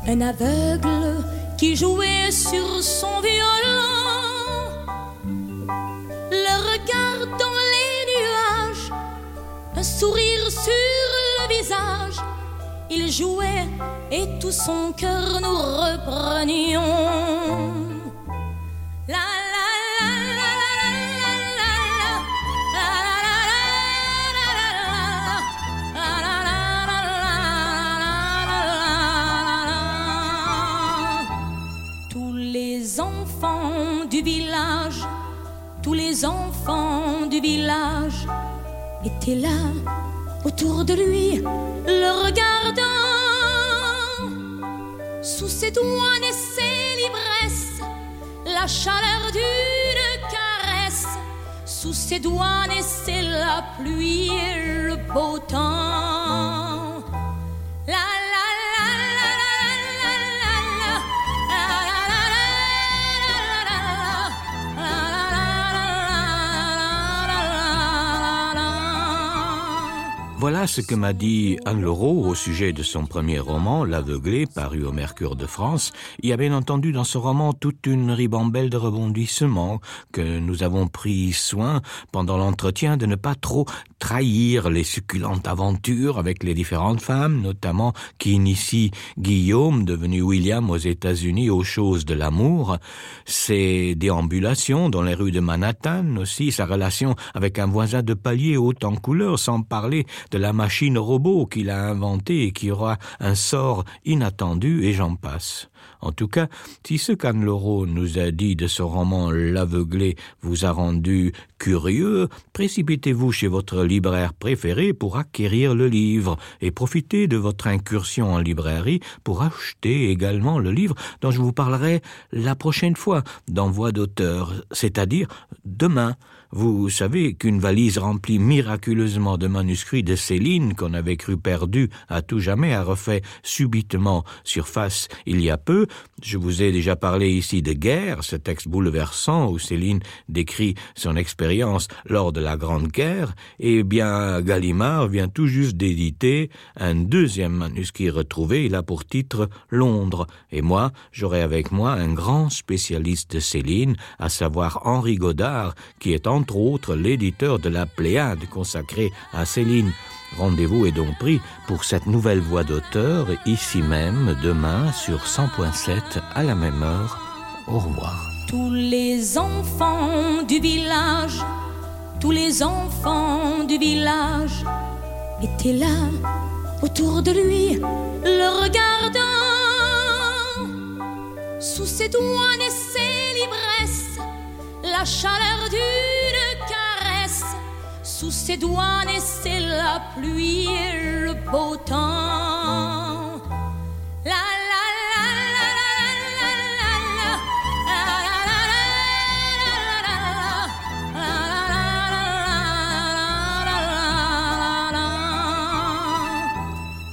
un aveugle qui jouait sur son violon, le regard dans les nuages, un sourire sur le visage. Il jouait et tout son cœur nous reprenions. La la la la la la la. Tous les enfants du village étaient là autour de lui, le regardant. Sous ses doigts naissait l'ivresse, la chaleur d'une caresse. Sous ses doigts naissait la pluie et le beau temps. La la la la la la la Voilà ce que m'a dit Anne Leroux au sujet de son premier roman, L'Aveuglé, paru au Mercure de France. Il y a bien entendu dans ce roman toute une ribambelle de rebondissements que nous avons pris soin pendant l'entretien de ne pas trop trahir les succulentes aventures avec les différentes femmes, notamment qui initient Guillaume, devenu William aux États-Unis, aux choses de l'amour, ses déambulations dans les rues de Manhattan aussi, sa relation avec un voisin de palier haut en couleur, sans parler de la machine robot qu'il a inventée et qui aura un sort inattendu, et j'en passe. En tout cas, si ce qu'Anne-Laure nous a dit de son roman L'Aveuglé vous a rendu curieux, précipitez-vous chez votre libraire préféré pour acquérir le livre et profitez de votre incursion en librairie pour acheter également le livre dont je vous parlerai la prochaine fois dans Voix d'auteur, c'est-à-dire demain. Vous savez qu'une valise remplie miraculeusement de manuscrits de Céline, qu'on avait cru perdu à tout jamais, a refait subitement surface il y a peu. Je vous ai déjà parlé ici de Guerre, ce texte bouleversant où Céline décrit son expérience lors de la Grande Guerre. Eh bien, Gallimard vient tout juste d'éditer un deuxième manuscrit retrouvé. Il a pour titre Londres. Et moi, j'aurai avec moi un grand spécialiste de Céline, à savoir Henri Godard, qui est entre autres l'éditeur de la Pléiade consacrée à Céline. Rendez-vous est donc pris pour cette nouvelle voix d'auteur, ici même, demain, sur 100.7, à la même heure. Au revoir. Tous les enfants du village, tous les enfants du village étaient là, autour de lui, le regardant. Sous ses doigts naissait l'ivresse, la chaleur d'une caresse. Sous ses doigts naissait la pluie et le beau temps. La la la la la la la.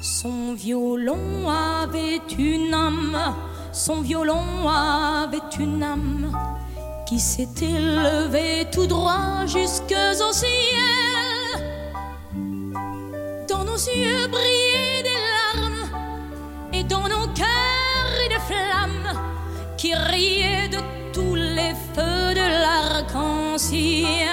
Son violon avait une âme, son violon avait une âme qui s'était levé tout droit jusqu'au ciel. Dans nos yeux brillaient des larmes et dans nos cœurs des flammes qui riaient de tous les feux de l'arc-en-ciel.